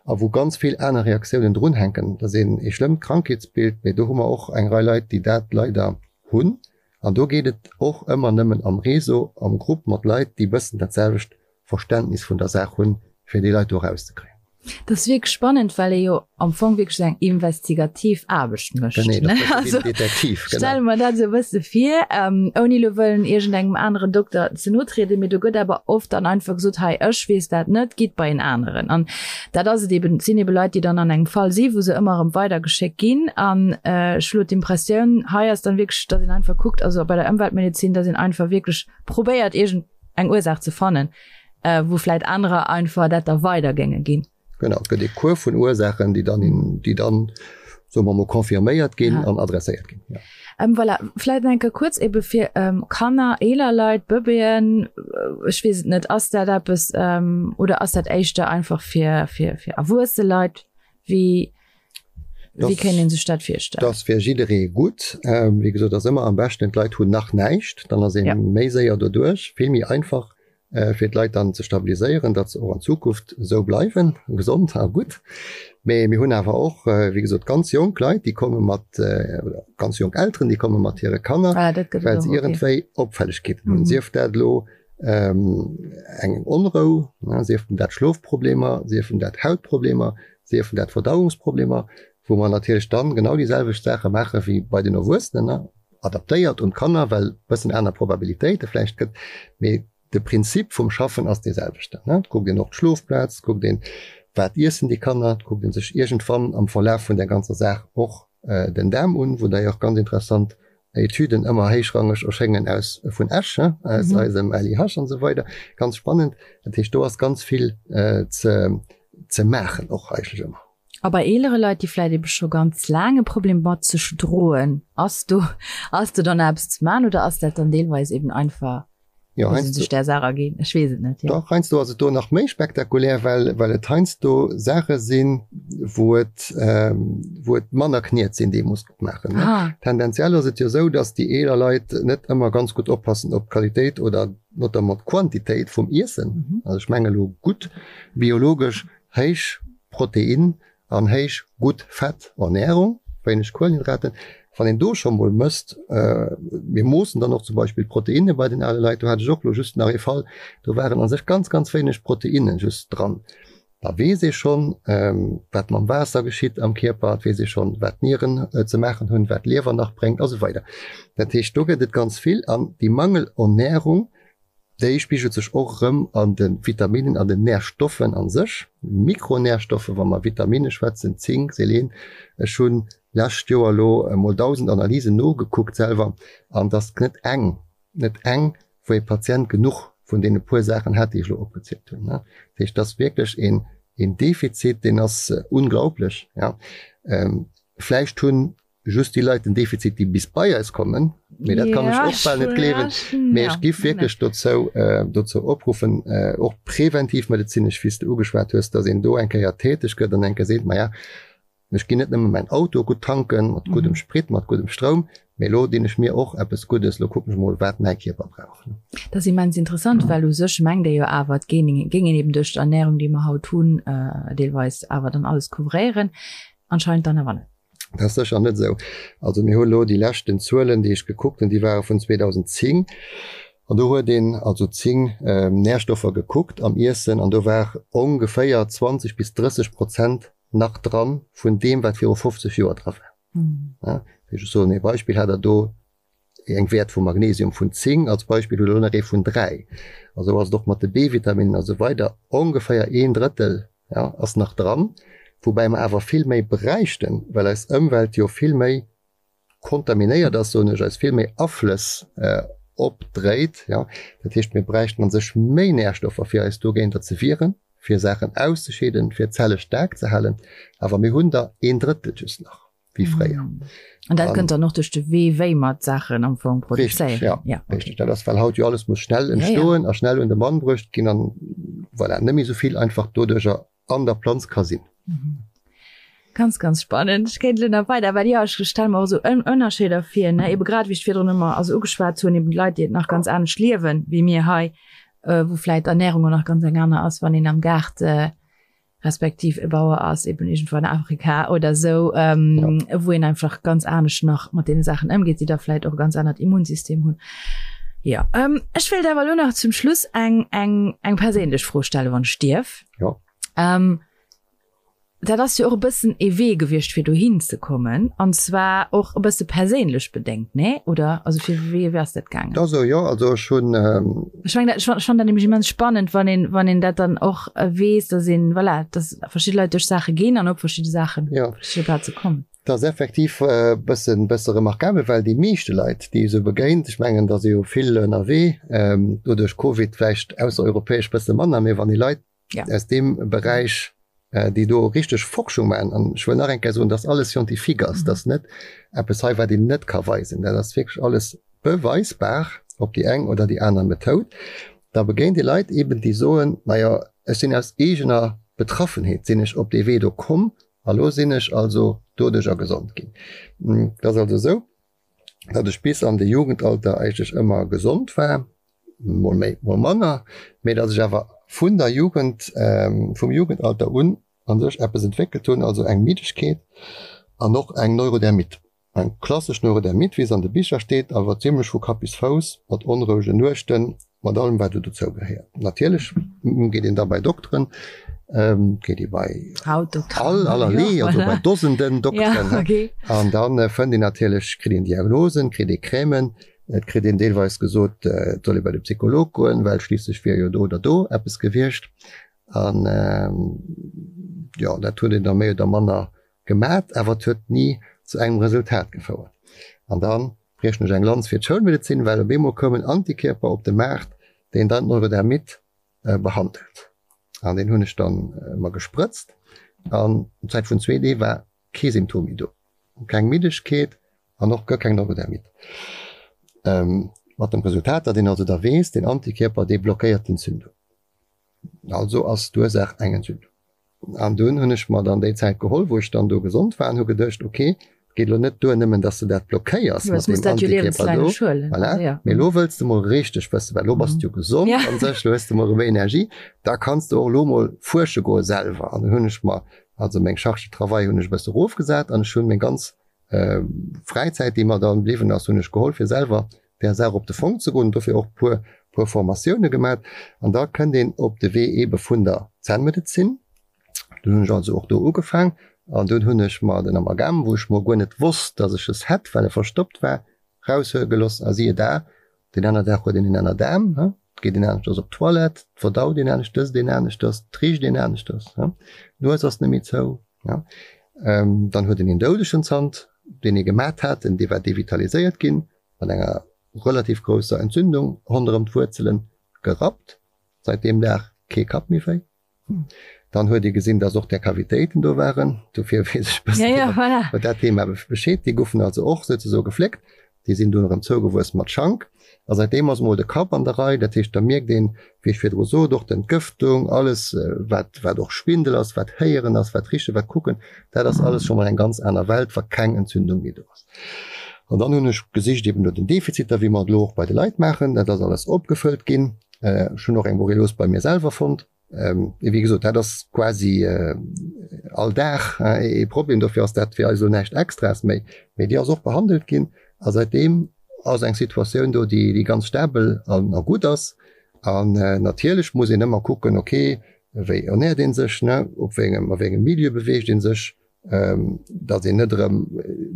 S2: a wou ganz vill aner Reaktiounen drunhänken. Dat ass een ee schlëmmt Krankheetsbild, mee do hu mer och eng Rei Leit, déi dat leider hunn. An do geet et och ëmmer nëmmen am Réseau, am Grupp mat Leit, déi bëssen dat selwecht Verständnis vun der Saach hunn, fir déi Leit do erauszekréien.
S1: Dat ass wierklech spannend, well ee jo am Fong wierklech esou eng investigativ Aarbecht mécht.
S2: Genee, dat ass e bësse wéi den Detektiv,
S1: genau. Stelle mer dat esou e bësse vir, ouni elo wëllen iergendengem aneren Dokter ze no trieden, mee do gëtt awer oft dann einfach gesot, hei, ech weess dat net, gitt bei en aneren. An dat ass et eben, et sinn ebe Leit, déi dann an engem Fall si wou se ëmmer erëm weidergeschéckt ginn. An ech hu lo d'Impressioun, hei ass dann wierklech, datt een einfach kuckt, also bei der Ëmweltmedezin, datt een einfach wierklech probéiert, iergend eng Ursaach ze fannen, wou vläit anerer einfach dat da weider géinge ginn.
S2: Genau, et gëtt ee Cours vun Ursaachen, déi dann, déi dann. Soe mer mol, confirméiert ginn an adresséiert ginn.
S1: Ja. Ähm, voilà, vläit nach eng Kéier kuerz ebe fir ähm, Kanner, eeler Leit, Bëbeeën, ech weess et net, ass dat eppes ähm, oder ass dat éischter einfach fir, fir, fir erwuesse Leit? Wéi, wéi kéint ee sech dat virstellen?
S2: Dat ass fir jidderee gutt. Ähm, wéi gesot, ass ëmmer am beschten, d'Leit hunn nach näischt, dann ass ee ja. méi séier doduerch, vill méi einfach. fir d'Leit dann ze stabiliséieren, datt se och an Zukunft esou bleiwen, gesond a gutt. Mee mir hunn awer och, wéi gesot, ganz jonk Leit, déi komme mat, oder ganz jonk Elteren, déi komme mat hire Kanner, well se iergendwéi Opfällegkeeten hunn, sief dat elo eng Onrou, siefen dat Schlofproblemer, siefen dat Hautproblemer, siefen dat Verdauungsproblemer, wou mer natierlech dann genau déi selwecht Saache maache wéi bei den Erwuessenen. adaptéiert un d'Kanner, well bëssen aner Probabilitéite vläicht gëtt, mee de Prinzip vum Schaffen ass dee selwechten. Et kuckt een och d'Schlofplaz, et kuckt een, wat iessen déi Kanner, et kuckt ee sech iergendwann am Verlaf vun där ganzer Saach och den Daarm un, wou d'ailleurs ganz interessant Etüden ëmmer héichrangeg erschéngen aus vun Esch, aus eisem LIH an esou weider, ganz spannend. Dat heescht, do ass ganz vill ze ze maachen och eigentlech ëmmer.
S1: A bei eelere Leit, déi vläit ebe scho ganz laang e Problem mat sech droen, ass do, ass do dann eppes ze man oder ass dat dann deelweis eben einfach,
S2: Jo,
S1: wou se sech där Saach erginn? Ech weess et net,
S2: jo. Dach, heiansdo ass et do nach méi spektakulär, well, well et heiansdo Saache sinn, wou et, wou et manner Kniet sinn, déi ee muss opmaachen, ne. Tendenziell ass et jo esou, datt déi eeler Leit net ëmmer ganz gutt oppassen op d'Qualitéit oder notamment d'Quantitéit vum Iessen. Also ech menge lo gutt biologesch héich Protein an héich gutt Fett Ernährung, wéineg Kuelenhydraten. Wann een do scho mol mësst, mir moossen dann och zum Beispill d'Proteinne bei den ale Leit, do hat ech och lo just nach ee Fall, do waren a sech ganz, ganz wéineg Proteinne just dran. Da weess ee schonn, wat mam Waasser geschitt am Kierper, et weess ee schonn, wat d'Nieren ze maachen hunn, wat d'Liewer nach bréngt a sou weider. Dat heescht, do gëtt et ganz vill an déi Mangelernährung, Déi spigelt sech och erëm an de Vitaminen, an den Närstoffen a sech, Mikronärstoffe wa mer Vitamine schwätzen, Zink, Selen. Ech hunn lescht Joer elo emol 1.000 Analysen nogekuckt selwer an et ass net eng, net eng, wou ee Patient genuch vun deene puer Saachen hätt, déi ech elo opgezielt hunn. Dat heescht, et ass wierklech een Defizit, deen ass unglaublech. Vläicht hunn just déi Leit den Defizit, déi bis bei eis kommen, mee dat kann ech och bal net gleewen. Mee ech giff wierklech dozou dozou opruffen, och präventivmedezinesch, wéi s de ugeschwat hues, datt een do eng Kéier täteg gëtt an eng Kéier seet, Maja, ech ginn net nëmme mäin Auto gutt tanken, mat guddem Sprit, mat guddem Stroum, mee elo dinn ech mir och eppes Guddes, elo kucken ech mol, wat mäi Kierper brauch.
S1: Dat ass immens interessant, well u sech mengt ee jo awer, et géing een eben duerch d'Ernärung, déi mer haut hunn, deelweis awer dann alles couvréieren. Anscheinend dann awer net.
S2: Dat ass sécher net esou. Also mir hu elo déi leschten Zuelen, déi ech gekuckt hunn, déi ware vun 2010. An do huet een also 10 Närstoffer gekuckt am Iessen an do war ongeféier 20 bis 30 Prozent nach dran vun deem, wat viru 50 Joer dra war. Ech soen ee Beispill, hat Der do eng Wäert vu Magnesium vun 10 als Beispill, hutt elo nach ee vun 3. A sou ass et och mat de B-Vitaminen a sou weider. Ongeféier een Drëttel, ja, ass nach dran, woubäi mer awer vill méi bräichten, well eis Ëmwelt jo vill méi kontaminéiert ass, soen ech, eis vill méi Aflëss opdréit, ja. Dat heescht, mir bräichten a sech méi Närstoffer, fir eis dogéinter ze wieren, fir Saachen auszescheeden, fir d'Zelle staark ze halen. Awer mir hunn der een Drëttel just nach. wéi fréier.
S1: An dat kënnt dann och duerch de Wee, wéi mer d'Saachen am Fong
S2: produzéieren. Richtig, ja. ja. Richtig. Dat ass, well haut jo alles muss schnell entstoen ja, ja. a schnell un de Mann bruecht ginn an voilà, net méi esou vill einfach doduercher an der Planz ka sinn.
S1: Mhm. Ganz, ganz spannend. Ech kéint elo nach weider, well jo, ech stelle mer och esou Ënnerscheeder vir, ne, ebe grad wéi ech virdrun ëmmer also ugeschwat hunn, eben d'Leit, déi et nach ganz anescht liewen wéi mir hei, wou vläit d'Ernährung och nach ganz eng aner ass, wann een am Gaart respektiv e Bauer ass eben irgendwo an Afrika oder sou, ähm, ja. wou een einfach ganz anescht nach mat deene Saachen ëmgeet, déi da vläit och e ganz anert Immunsystem hunn. Ja, ähm, ech wéilt awer elo nach zum Schluss eng, eng, eng perséinlech Fro stellen, wann ech dierf.
S2: Ja.
S1: Ähm, dat ass jo och e bëssen ee Wee gewiescht, fir dohin ze kommen, an zwar och e bësse perséinlech bedéngt, nee? Oder also fir wéi, wéi ass dat gaangen?
S2: Dat esou, jo. Also ech hunn.
S1: Ech mengen, ech fannen dat nämlech immens spannend, wann een, wann een dat dann och weess, dass een, voilà, dass verschidde Leit duerch Saache ginn an op verschidde Saachen,
S2: ja.
S1: verschidde Plaze kommen.
S2: Dat ass effektiv e bëssen, bësse remarkabel, well déi meeschte Leit, déi ee sou begéint, ech mengen, da si jo vill ënnerwee, do duerch Covid vläicht aussereuropäesch bësse manner, mee wann ee Leit ja. aus deem Beräich. déi do richteg Forschung maachen, an ech wëll nach eng Kéier soen, dass alles scientifique ass, dass net eppes hei wat een net ka weisen, dat ass wierklech alles beweisbar op déi eng oder déi aner Methoud, da begéint ee Leit eben, déi soen, majo ech sinn aus eegener Betraffenheet sinn ech op dee Wee do komm a lo sinn ech also doduercher gesond ginn. Et ass also esou, datt ech bis an de Jugendalter eigentlech ëmmer gesond war, mol méi, mol manner, mee datt ech awer vun der Jugend, vum Jugendalter un a sech eppes entwéckelt hunn, also eng Middegkeet an och eng Neurodermite. Eng klassesch Neurodermite, wéi se an de Bicher steet, awer zimlech vu Kapp bis Fouss, mat onrouegen Nuechten, mat allem wat do dozou gehéiert. Natierlech geet een da bei Dokteren, geet ee bei all allerlee, also bei Dosenden Dokteren, an da fënnt een natierlech, kritt een Diagnosen, kritt ee Crèmen, et kritt een deelweis gesot, et soll ee bei de Psycholog goen, well schliisslech wier jo do oder do eppes gewiescht. An jo, dat huet een da méi oder manner gemat, awer et huet ni zu engem Resultat gefouert. An da briechen ech eng Lanz fir d'Schoulmedezin, well op eemol koum en Antikierper op de Maart, deen dann d'Neurodermite behandelt. An deen hunn ech dann mer gesprëtzt an Zäit vun zwee Dee war kee Symptom méi do, keng Middegkeet an och guer keng Neurodermite. Mat dem Resultat, datt een also da weess, deen Antikierper, dee blockéiert d'Entzündung. Also ass d'Ursaach eng Entzündung. An dunn hunn ech mer dann déi Zäit geholl, wou ech dann do gesond war an hu geduecht, ok, et geet elo net duer nëmmen, dass de dat blockéiers mat deem Antikierper do, voilà, mee elo wëlls de mol richteg wëssen, well elo bass de jo gesond an sech, elo hues de mol erëm Energie, da kanns de och elo mol fuersche goe selwer. An dunn hunn ech mer also meng Charge de travail hunn ech e bësse erofgesat an ech hunn meng ganz Fräizäit, déi mer dann bliwwen ass, hunn ech geholl, fir selwer där Saach op de Fong ze goen, dofir och puer puer Formatioune gemat. An da kënnt een op de Wee eebe vun der Zännmedezin. Dunn hunn ech also och do ugefaang an dunn hunn ech mer den Amalgam, wou ech mol guer net wosst, datt ech es hätt, well e verstoppt war, raushuele geloss a siehe da, deen aner Dag huet een en aner Daarm, et geet een aneschters op d'Toilette, et verdaut een anescht, ësst een aneschters, et richt een aneschters, d'Nues ass net méi zou. Dann huet een een doudegen Zant, deen ee gemat hat, dee war devitaliséiert ginn, mat enger relativ grousser Entzündung ronderëm d'Wuerzelen, gerappt. Seit deem Dag kee Kapp méi wéi. Dann huet ee gesinn, dass och där Kavitéiten do waren. Dofir weess ech e bëssen iwwer dat Thema Bescheed. Déi goufen also och souzesoe gefléckt. Déi sinn dunn erëm zougewuess mat Schank. A säitdeem ass emol de Kapp an der Rei. Dat heescht, da mierkt een, wéi ech virdru sot, och d'Entgëftung, alles wat, wat och Schwindel ass, wat Héieren ass, wat Richen, wat Kucken, dat ass alles scho mol eng ganz aner Welt, wa keng Entzündung méi do ass. An dann hunn ech gesicht eben no den Defiziter, wéi mer et elo och bei de Leit maachen. Dat ass alles opgefëllt ginn. Ech hunn och eng Borrelios bei mir selwer fonnt. Wéi gesot, dat ass quasi all Dag ee Problem. Dofir ass dat fir eis elo näischt Extraes méi. Mee déi ass och behandelt ginn a säitdeem ass eng Situatioun do, déi ganz stabel a gutt ass. An natierlech muss een ëmmer kucken, okay, wéi ernäert ee sech, ne, op wéi engem, a wéi engem Milieu beweegt ee sech, datt een net erëm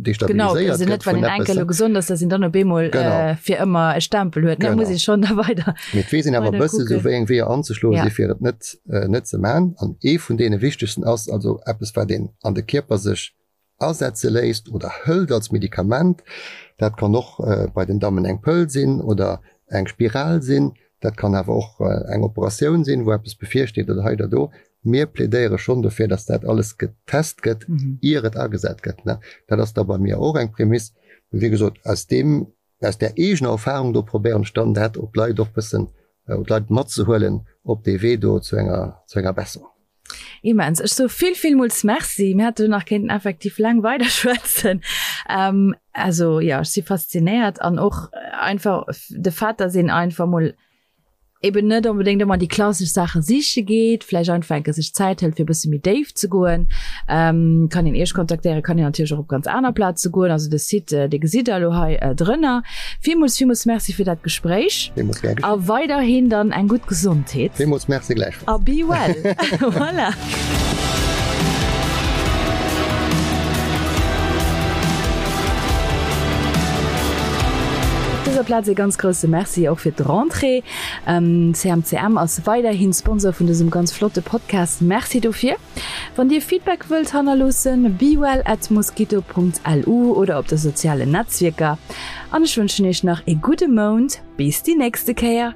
S1: destabiliséiert gëtt vun eppes. Genau, elo gesond ass, datt een dann op eemol fir ëmmer e Stempel huet, da muss ee schonn da weider.
S2: Mee et weess een awer e bësse sou wéi eng Weeër anzeschloen si fir et net net ze man. An ee vun deene wichtegsten ass also eppes wat een an de Kierper sech asetze léisst oder hëlt als Medikament. Dat kann och bei den Dammen eng Pëll sinn oder eng Spiral sinn. Dat kann awer och eng Operatioun sinn, wou eppes bevirsteet oder hei oder do. Mir plädéiere schonn dofir, dass dat alles getest gëtt, ier et agesat gëtt. Dat ass da bei mir och eng Prämiss. Wéi gesot, aus deem, aus där eegener Erfahrung do probéieren ech dann dat op d'Leit och bëssen, op d'Leit matzehuelen op dee Wee do zu enger, zu enger Besserung.
S1: Immens. Ech soe vill, villmools Merci. Mir hätte nach kéinten effektiv laang weiderschwätzen. Also jo, ech si faszinéiert an och einfach de Fait, dass een einfach mol eben net onbedéngt ëmmer déi klassesch Saache siche geet, vläicht einfach enke sech Zäit hëlt, fir e bësse méi déif ze goen. Kann een Iech kontaktéieren, kann een natierlech och op ganz aner Plaze goen. Also de Site, dee gesitt Der elo hei drënner. Villmools, villmools Merci fir dat Gespréich.
S2: Villmools gär
S1: geschéen. A weiderhin dann eng gutt Gesondheet.
S2: Villmools Merci gläichfalls.
S1: A be well. Voilà. Op dëser Plaz ee ganz grousse Merci och fir d'Rentrée. CMCM ass weiderhin Sponsor vun dësem ganz flotte Podcast. Merci dofir. Wann Dir Feedback wëllt hannerloossen, bewell at mosquito.lu oder op de sozialen Netzwierker. An ech wënschen Iech nach ee gudde Mount. Bis déi nächste Kéier.